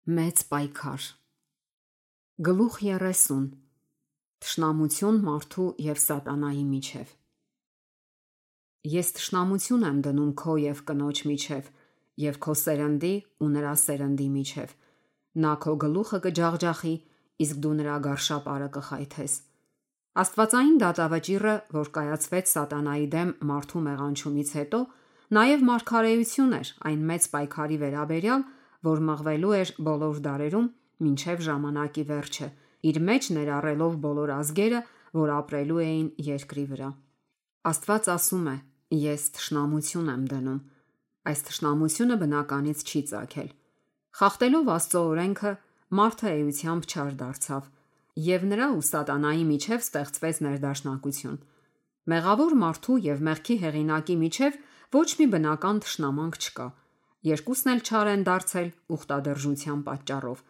Մեծ պայքար։ Գլուխ 30. Թշնամություն մարդու և սատանայի միջև։ Ես թշնամություն եմ դնում քո և կնոջ միջև, և քո սերնդի ու նրա սերնդի միջև։ Նա քո գլուխը կջախջախի, իսկ դու նրա գարշապարը կխայթես։ Աստվածային դատավճիռը, որ կայացվեց սատանայի դեմ մարդու մեղանչումից հետո, նաև մարգարեություն էր այն մեծ պայքարի վերաբերյալ, որ մղվելու էր բոլոր դարերում մինչև ժամանակի վերջը, իր մեջ ներառելով բոլոր ազգերը, որ ապրելու էին երկրի վրա։ Աստված ասում է. Ես թշնամություն եմ դնում։ Այս թշնամությունը բնականից չի ծագել։ Խախտելով Աստծո օրենքը, մարդը էությամբ չար դարձավ, և նրա ու սատանայի միջև ստեղծվեց ներդաշնակություն։ Մեղավոր մարդու և մեղքի հեղինակի միջև ոչ մի բնական թշնամանք չկա։ Երկուսն էլ չար են դարձել ուխտադրժության պատճառով։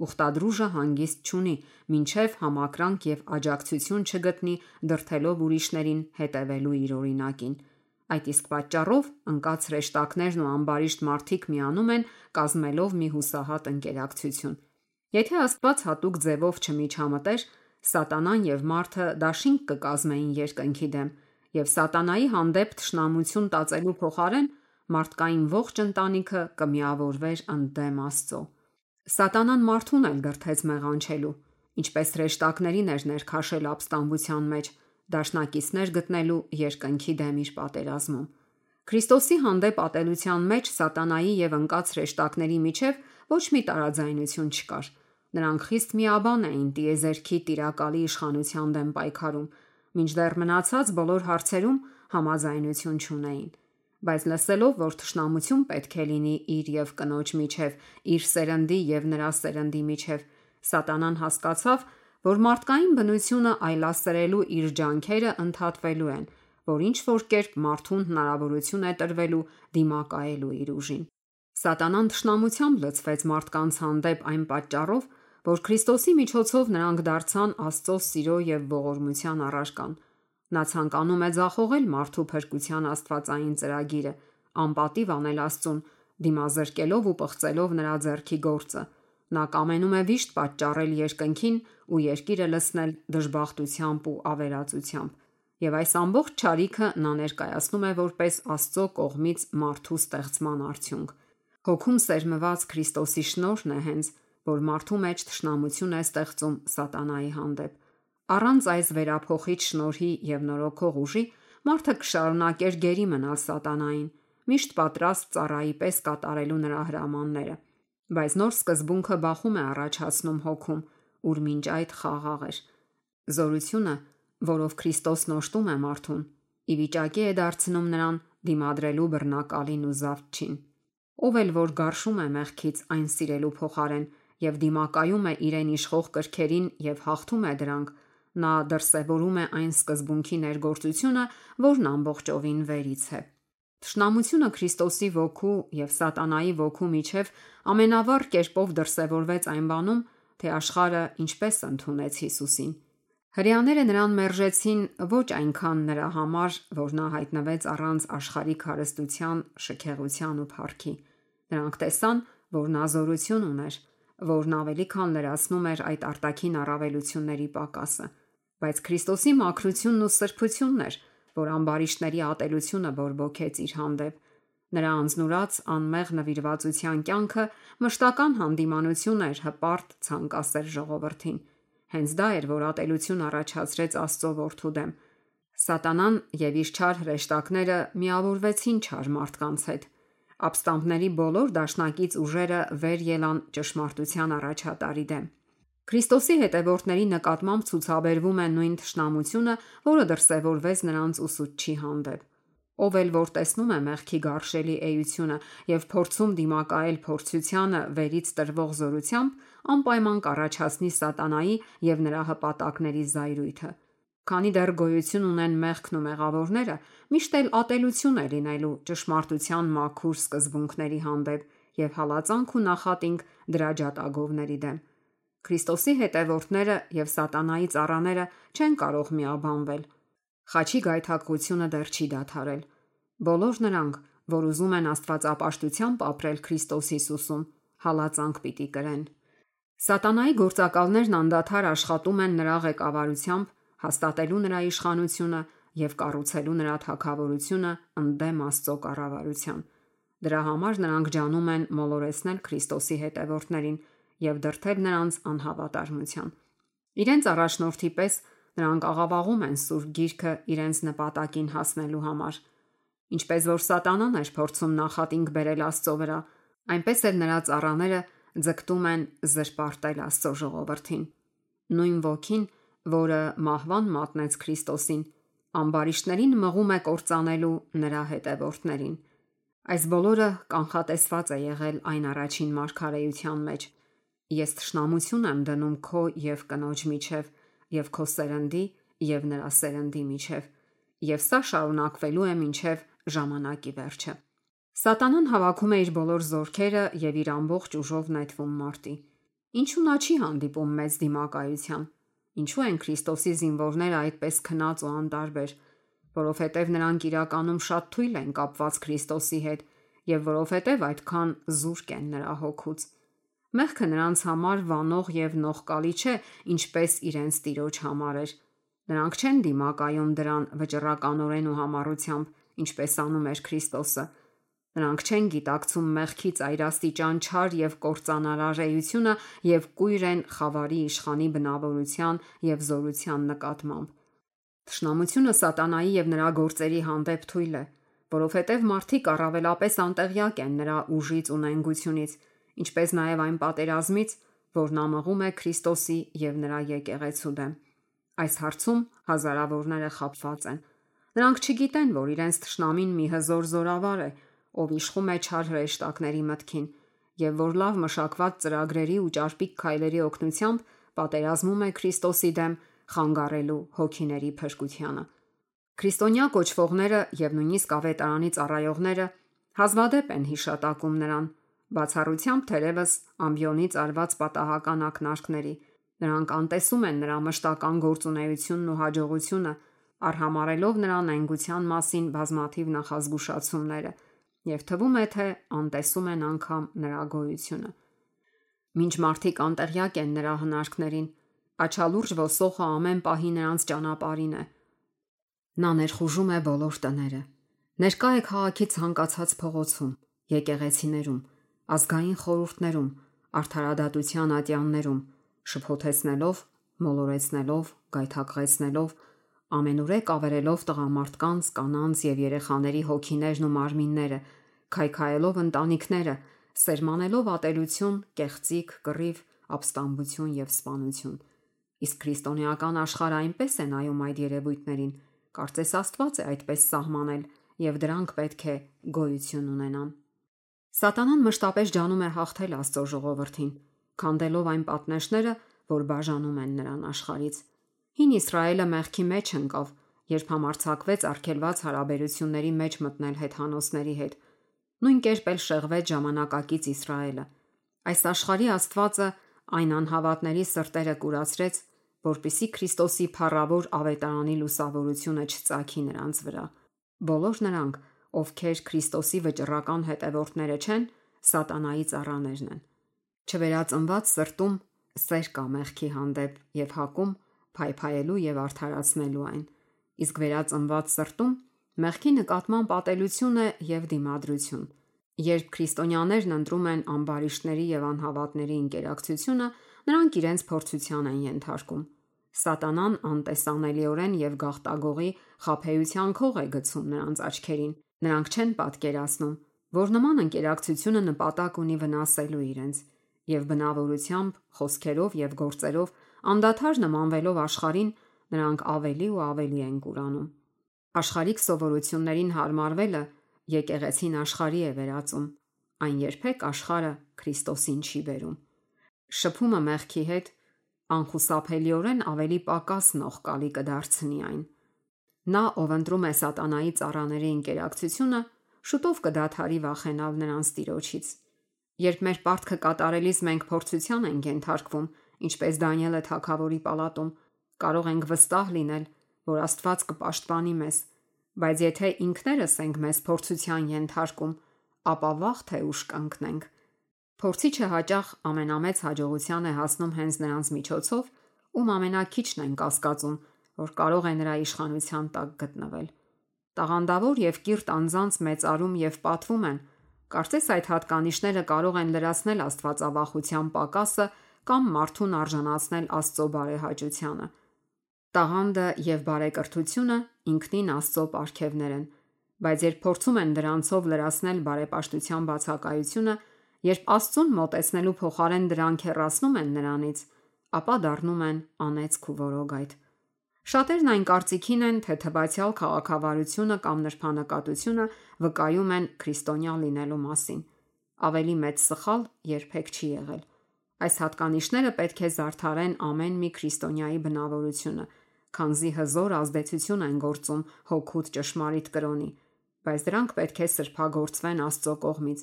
Ուխտադրուժը հանգիստ չունի, մինչև համակրանք և աջակցություն չգտնի դրդելով ուրիշներին հետևելու իր օրինակին։ Այդ իսկ պատճառով ընկած հրեշտակներն ու ամբարիշտ մարդիկ միանում են, կազմելով մի հուսահատ ընկերակցություն։ Եթե Աստված հատուկ ձևով չմիջամտեր, սատանան և մարդը դաշինք կկազմեին երկնքի դեմ, և սատանայի հանդեպ թշնամություն տածելու փոխարեն մարդկային ողջ ընտանիքը կմիավորվեր ընդդեմ Աստծո։ Սատանան մարդուն էլ դրդեց մեղանչելու, ինչպես հրեշտակներին էր ներքաշել ապստամբության մեջ, դաշնակիցներ գտնելու երկնքի դեմ իր պատերազմում։ Քրիստոսի հանդեպ ատելության մեջ սատանայի և ընկած հրեշտակների միջև ոչ մի տարաձայնություն չկար։ Նրանք խիստ միաբան էին տիեզերքի տիրակալի իշխանության դեմ պայքարում, մինչդեռ մնացած բոլոր հարցերում համաձայնություն չունեին։ Բայց լսելով, որ թշնամություն պետք է լինի իր և կնոջ միջև, իր սերնդի և նրա սերնդի միջև, սատանան հասկացավ, որ մարդկային բնությունը այլասերելու իր ջանքերը ընդհատվելու են, որ ինչ-որ կերպ մարդուն հնարավորություն է տրվելու դիմակայելու իր ուժին։ Սատանան թշնամությամբ լցվեց մարդկանց հանդեպ այն պատճառով, որ Քրիստոսի միջոցով նրանք դարձան Աստծո սիրո և ողորմության առարկան։ Նա ցանկանում է ձախողել մարդու փրկության աստվածային ծրագիրը, անպատիվ անել Աստծուն, դիմազրկելով ու պղծելով նրա ձեռքի գործը։ Նա կամենում է վիշտ պատճառել երկնքին ու երկիրը լցնել դժբախտությամբ ու ավերածությամբ։ Եվ այս ամբողջ չարիքը նա ներկայացնում է որպես Աստծո կողմից մարդու ստեղծման արդյունք։ Հոգում սերմված Քրիստոսի շնորհն է հենց, որ մարդու մեջ թշնամություն է ստեղծում սատանայի հանդեպ։ Առանց այս վերափոխիչ շնորհի և նորոգող ուժի մարդը կշարունակեր գերի մնալ սատանային, միշտ պատրաստ ծառայի պես կատարելու նրա հրամանները։ Բայց նոր սկզբունքը բախում է առաջացնում հոգում, ուր մինչ այդ խաղաղ էր։ Զորությունը, որով Քրիստոսն օժտում է մարդուն, ի վիճակի է դարձնում նրան դիմադրելու բռնակալին ու զավթչին։ Ով էլ որ գարշում է մեղքից այն սիրելու փոխարեն և դիմակայում է իրեն իշխող կրքերին և հաղթում է դրանք, նա դրսևորում է այն սկզբունքի ներգործությունը, որն ամբողջովին վերից է։ Թշնամությունը Քրիստոսի ոգու և սատանայի ոգու միջև ամենավառ կերպով դրսևորվեց այն բանում, թե աշխարհը ինչպես ընդունեց Հիսուսին։ Հրեաները նրան մերժեցին ոչ այնքան նրա համար, որ նա հայտնվեց առանց աշխարհիկ հարստության, շքեղության ու փառքի։ Նրանք տեսան, որ նա զորություն ուներ, որն ավելի քան լրացնում էր այդ արտաքին առավելությունների պակասը։ Բայց Քրիստոսի մաքրությունն ու սրբությունն էր, որ ամբարիշտների ատելությունը բորբոքեց իր հանդեպ։ Նրա անձնուրաց անմեղ նվիրվածության կյանքը մշտական հանդիմանություն էր հպարտ, ցանկասեր ժողովրդին։ Հենց դա էր, որ ատելություն առաջացրեց Աստծո որդու դեմ։ Սատանան և իր չար հրեշտակները միավորվեցին չար մարդկանց հետ։ Ապստամբների բոլոր դաշնակից ուժերը վեր ելան ճշմարտության առաջատարի դեմ։ Քրիստոսի հետևորդների նկատմամբ ցուցաբերվում է նույն թշնամությունը, որը դրսևորվեց նրանց ուսուցչի հանդեպ։ Ով էլ որ տեսնում է մեղքի գարշելի էությունը և փորձում դիմակայել փորձությանը վերից տրվող զորությամբ, անպայման կառաջացնի սատանայի և նրա հպատակների զայրույթը։ Քանի դեռ գոյություն ունեն մեղքն ու մեղավորները, միշտ էլ ատելություն է լինելու ճշմարտության մաքուր սկզբունքների հանդեպ և հալածանք ու նախատինք դրա ջատագովների դեմ։ Քրիստոսի հետևորդները և սատանայի ծառաները չեն կարող միաբանվել։ Խաչի գայթակղությունը դեռ չի դադարել։ Բոլոր նրանք, որ ուզում են աստվածապաշտությամբ ապրել Քրիստոս Հիսուսում, հալածանք պիտի կրեն։ Սատանայի գործակալներն անդադար աշխատում են նրա ղեկավարությամբ, հաստատելու նրա իշխանությունը եւ կառուցելու նրա թագավորությունը ընդդեմ Աստծո կառավարության։ Դրա համար նրանք ջանում են մոլորեցնել Քրիստոսի հետևորդներին եւ դրդել նրանց անհավատարմության։ Իրենց առաջնորդի պես նրանք աղավաղում են Սուրբ Գիրքը իրենց նպատակին հասնելու համար։ Ինչպես որ Սատանան էր փորձում նախատինք բերել Աստծո վրա, այնպես էլ նրա ծառաները ձգտում են զրպարտել Աստծո ժողովրդին։ Նույն ոգին, որը մահվան մատնեց Քրիստոսին, ամբարիշտներին մղում է կործանելու նրա հետևորդներին։ Այս բոլորը կանխատեսված է եղել այն առաջին մարգարեության մեջ։ Ես թշնամություն եմ դնում քո եւ կնոջ միջև, եւ քո սերնդի եւ նրա սերնդի միջև, եւ սա շարունակվելու է մինչև ժամանակի վերջը։ Սատանան հավաքում է իր բոլոր զորքերը եւ իր ամբողջ ուժով նետվում մարտի։ Ինչու նա չի հանդիպում մեծ դիմակայության։ Ինչու են Քրիստոսի զինվորները այդպես քնած ու անտարբեր, որովհետև նրանք իրականում շատ թույլ են կապված Քրիստոսի հետ եւ որովհետև այդքան զուրկ են նրա հոգուց։ Մեղքը նրանց համար վանող եւ նողկալի չէ, ինչպես իրենց Տիրոջ համար էր։ Նրանք չեն դիմակայում դրան վճռականորեն ու համառությամբ, ինչպես անում էր Քրիստոսը։ Նրանք չեն գիտակցում մեղքի ծայրաստիճան չար եւ կործանարար էությունը եւ կույր են խավարի իշխանի բնավորության եւ զորության նկատմամբ։ Թշնամությունը Սատանայի եւ նրա գործերի հանդեպ թույլ է, որովհետև մարդիկ առավելապես անտեղյակ են նրա ուժից ու նենգությունից, ինչպես նաև այն պատերազմից, որ նա մղում է Քրիստոսի եւ նրա եկեղեցու դեմ։ Այս հարցում հազարավորները խաբված են։ Նրանք չգիտեն, որ իրենց թշնամին մի հզոր զորավար է, ով իշխում է չար հրեշտակների մտքին, եւ որ լավ մշակված ծրագրերի ու ճարպիկ քայլերի օգնությամբ պատերազմում է Քրիստոսի դեմ, խանգարելու հոգիների փրկությանը։ Քրիստոնյա կոչվողները եւ նույնիսկ ավետարանի ծառայողները հազվադեպ են հիշատակում նրան, բացառությամբ թերևս ամբիոնից արված պատահական ակնարկների։ Նրանք անտեսում են նրա մշտական գործունեությունն ու հաջողությունը, արհամարելով նրա նենգության մասին բազմաթիվ նախազգուշացումները, եւ թվում է, թե անտեսում են անգամ նրա գոյությունը։ Մինչ մարդիկ անտեղյակ են նրա հնարքներին, աչալուրջ ոսողը ամեն պահի նրանց ճանապարհին է։ Նա ներխուժում է բոլոր տները։ Ներկա է քաղաքի ցանկացած փողոցում, եկեղեցիներում, ազգային խորհուրդներում, արդարադատության ատյաններում, շփոթեցնելով, մոլորեցնելով, գայթակղեցնելով, ամենուրեք ավերելով տղամարդկանց, կանանց եւ երեխաների հոգիներն ու մարմինները, քայքայելով ընտանիքները, սերմանելով ատելություն, կեղծիք, կռիվ, ապստամբություն եւ սպանություն։ Իսկ քրիստոնեական աշխարհը այնպես է նայում այդ երևույթներին, կարծես Աստված է այդպես սահմանել եւ դրանք պետք է գոյություն ունենան։ Սատանան մշտապես ջանում է հաղթել Աստծո ժողովրդին, քանդելով այն պատնեշները, որ բաժանում են նրան աշխարհից։ Հին Իսրայելը մեղքի մեջ ընկավ, երբ համարձակվեց արգելված հարաբերությունների մեջ մտնել հեթանոսների հետ։ Նույն կերպ էլ շեղվեց ժամանակակից Իսրայելը։ Այս աշխարհի Աստվածը այն անհավատների սրտերը կուրացրեց, որպիսի Քրիստոսի փառավոր ավետարանի լուսավորությունը չծագի նրանց վրա։ Բոլոր նրանք, ովքեր Քրիստոսի վճռական հետևորդները չեն, Սատանայի ծառաներն են։ Չվերածնված սրտում սեր կա մեղքի հանդեպ եւ հակում փայփայելու եւ արդարացնելու այն, իսկ վերածնված սրտում մեղքի նկատմամբ ատելություն է եւ դիմադրություն։ Երբ քրիստոնյաներն ընտրում են ամբարիշտների եւ անհավատների ինտերակցիոնը, նրանք իրենց փորձության են ենթարկում։ Սատանան անտեսանելիորեն եւ գաղտագողի խաբեության քող է գցում նրանց աչքերին։ Նրանք չեն պատկերացնում, որ նման ինտերակցիոնը նպատակ ունի վնասելու իրենց, եւ բնավորությամբ, խոսքերով եւ գործերով անդադար նմանվելով աշխարհին, նրանք ավելի ու ավելի են կուրանում։ Աշխարհիկ սովորություններին հարմարվելը եկեղեցին աշխարհի է վերածում։ Այն երբեք աշխարհը Քրիստոսին չի բերում։ Շփումը մեղքի հետ անխուսափելիորեն ավելի պակաս նողկալի կդարձնի այն։ Նա, ով ընտրում է Սատանայի ծառաների ինտերակցիոնը, շուտով կդադարի վախենալ նրանց Տիրոջից։ Երբ մեր պարտքը կատարելիս մենք փորձության ենք ենթարկվում, ինչպես Դանիելը թագավորի պալատում, կարող ենք վստահ լինել, որ Աստված կպաշտպանի մեզ, բայց եթե ինքներս ենք մեզ փորձության ենթարկում, ապա վաղ թե ուշ կընկնենք։ Փորձիչը հաճախ ամենամեծ հաջողության է հասնում հենց նրանց միջոցով, ում ամենակիչն են կասկածում, որ կարող է նրա իշխանության տակ գտնվել։ Տաղանդավոր եւ կիրթ անձանց մեծարում եւ պատվում են, կարծես այդ հատկանիշները կարող են լրացնել աստվածավախության պակասը կամ մարդուն արժանացնել Աստծո բարեհաճությանը։ Տաղանդը եւ բարեկրթությունը ինքնին Աստծո պարգևներ են, բայց երբ փորձում են դրանցով լրացնել բարեպաշտության բացակայությունը, երբ Աստծուն մոտեցնելու փոխարեն դրանք հեռացնում են նրանից, ապա դառնում են անեծք ու որոգայթ։ Շատերն այն կարծիքին են, թե թվացial քաղաքավարությունը կամ նրբանկատությունը վկայում են քրիստոնյա լինելու մասին։ Ավելի մեծ սխալ երբեք չի եղել։ Այս հատկանիշները պետք է զարդարեն ամեն մի քրիստոնյայի բնավորությունը, քանզի հզոր ազդեցություն են գործում հոգուտ ճշմարիտ կրոնի, բայց դրանք պետք է սրբագործվեն Աստծո կողմից,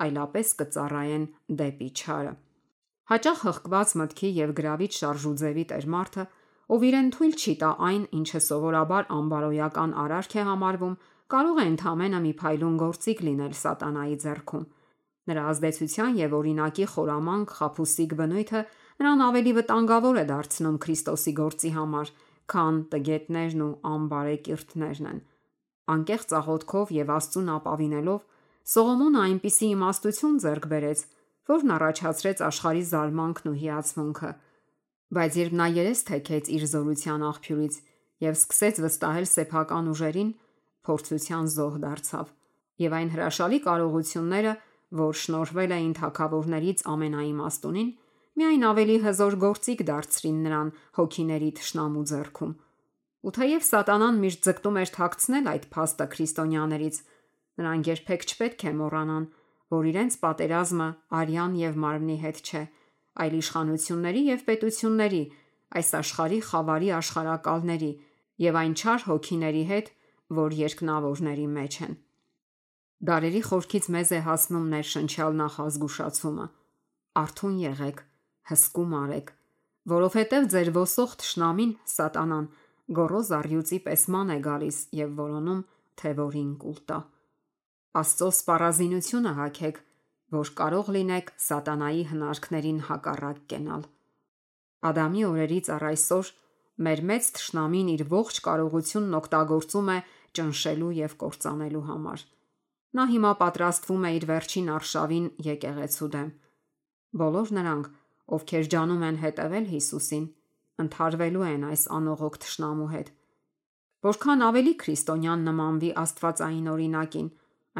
այլապես կծառայեն դեպի չարը։ Հաճախ հղկված մտքի եւ գրավիչ շարժուձևի տեր մարդը, ով իրեն թույլ չի տա այն, ինչը սովորաբար անբարոյական արարք է համարվում, կարող է ընդհանրապես մի փայլուն գործիք լինել սատանայի ձեռքում։ Նրա ազդեցության եւ օրինակի խորամանկ խաբուսիկ բնույթը նրան ավելի վտանգավոր է դարձնում Քրիստոսի գործի համար, քան տգետներն ու անբարեկիրթներն են։ Անկեղծ աղոթքով եւ Աստծուն ապավինելով Սողոմոնը այնպիսի իմաստություն ձեռք բերեց, որն առաջացրեց աշխարհի զարմանքն ու հիացմունքը։ Բայց երբ նա երես թեքեց իր զորության աղբյուրից եւ սկսեց վստահել սեփական ուժերին, փորձության զոհ դարձավ, եւ այն հրաշալի կարողությունները, որ շնորհվել էին թագավորներից ամենաիմաստունին, միայն ավելի հզոր գործիք դարձրին նրան հոգիների թշնամու ձեռքում։ Ու թեև սատանան միշտ ձգտում էր թաքցնել այդ փաստը քրիստոնյաներից, նրանք երբեք չպետք է մոռանան, որ իրենց պատերազմը արյան եւ մարմնի հետ չէ, այլ իշխանությունների եւ պետությունների, այս աշխարհի խավարի աշխարհակալների եւ այն չար հոգիների հետ, որ երկնավորների մեջ են։ Դարերի խորքից մեզ է հասնում ներշնչյալ նախազգուշացումը. արթուն եղեք, հսկում արեք, որովհետև ձեր ոսող թշնամին սատանան գոռոզ առյուծի պես ման է գալիս եւ որոնում, թե որին կուլ տա։ Աստծո սպառազինությունը հագեք, որ կարող լինեք սատանայի հնարքներին հակառակ կենալ։ Ադամի օրերից առ այսօր մեր մեծ թշնամին իր ողջ կարողությունն օգտագործում է ճնշելու եւ կործանելու համար։ Նա հիմա պատրաստվում է իր վերջին արշավին եկեղեցու դեմ։ Բոլոր նրանք, ովքեր ջանում են հետևել Հիսուսին, ընդհարվելու են այս անողոք թշնամու հետ։ Որքան ավելի քրիստոնյան նմանվի Աստվածային օրինակին,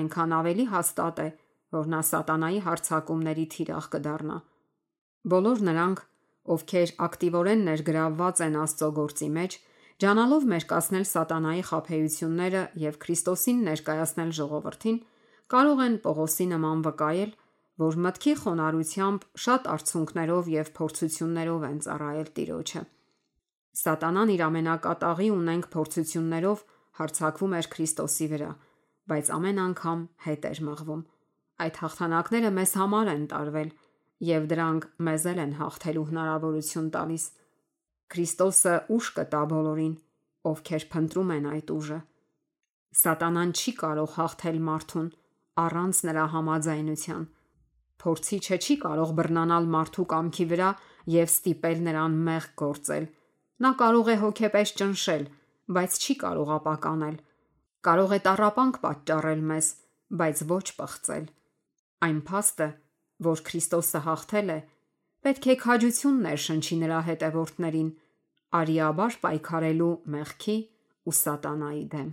այնքան ավելի հաստատ է, որ նա սատանայի հարձակումների թիրախ կդառնա։ Բոլոր նրանք, ովքեր ակտիվորեն ներգրավված են Աստծո գործի մեջ, ջանալով մերկացնել սատանայի խաբեությունները եւ Քրիստոսին ներկայացնել ժողովրդին, կարող են Պողոսի նման վկայել, որ մտքի խոնարհությամբ շատ արցունքներով եւ փորձություններով են ծառայել Տիրոջը։ Սատանան իր ամենակատաղի ունենք փորձություններով հարձակվում էր Քրիստոսի վրա, բայց ամեն անգամ հետ էր մղվում։ Այդ հաղթանակները մեզ համար են տարվել եւ դրանք մեզ են հաղթելու հնարավորություն տալիս։ Քրիստոսը ուժ կտա բոլորին, ովքեր փնտրում են այդ ուժը։ Սատանան չի կարող հաղթել մարդուն առանց նրա համաձայնության։ Փորձիչը չի կարող բռնանալ մարդու կամքի վրա եւ ստիպել նրան մեղք գործել։ Նա կարող է հոգեպես ճնշել, բայց չի կարող ապականել։ Կարող է տառապանք պատճառել մեզ, բայց ոչ պղծել։ Այն փաստը, որ Քրիստոսը հաղթել է, պետք է քաջություն ներշնչի նրա հետևորդներին, արիաբար պայքարելու մեղքի ու սատանայի դեմ։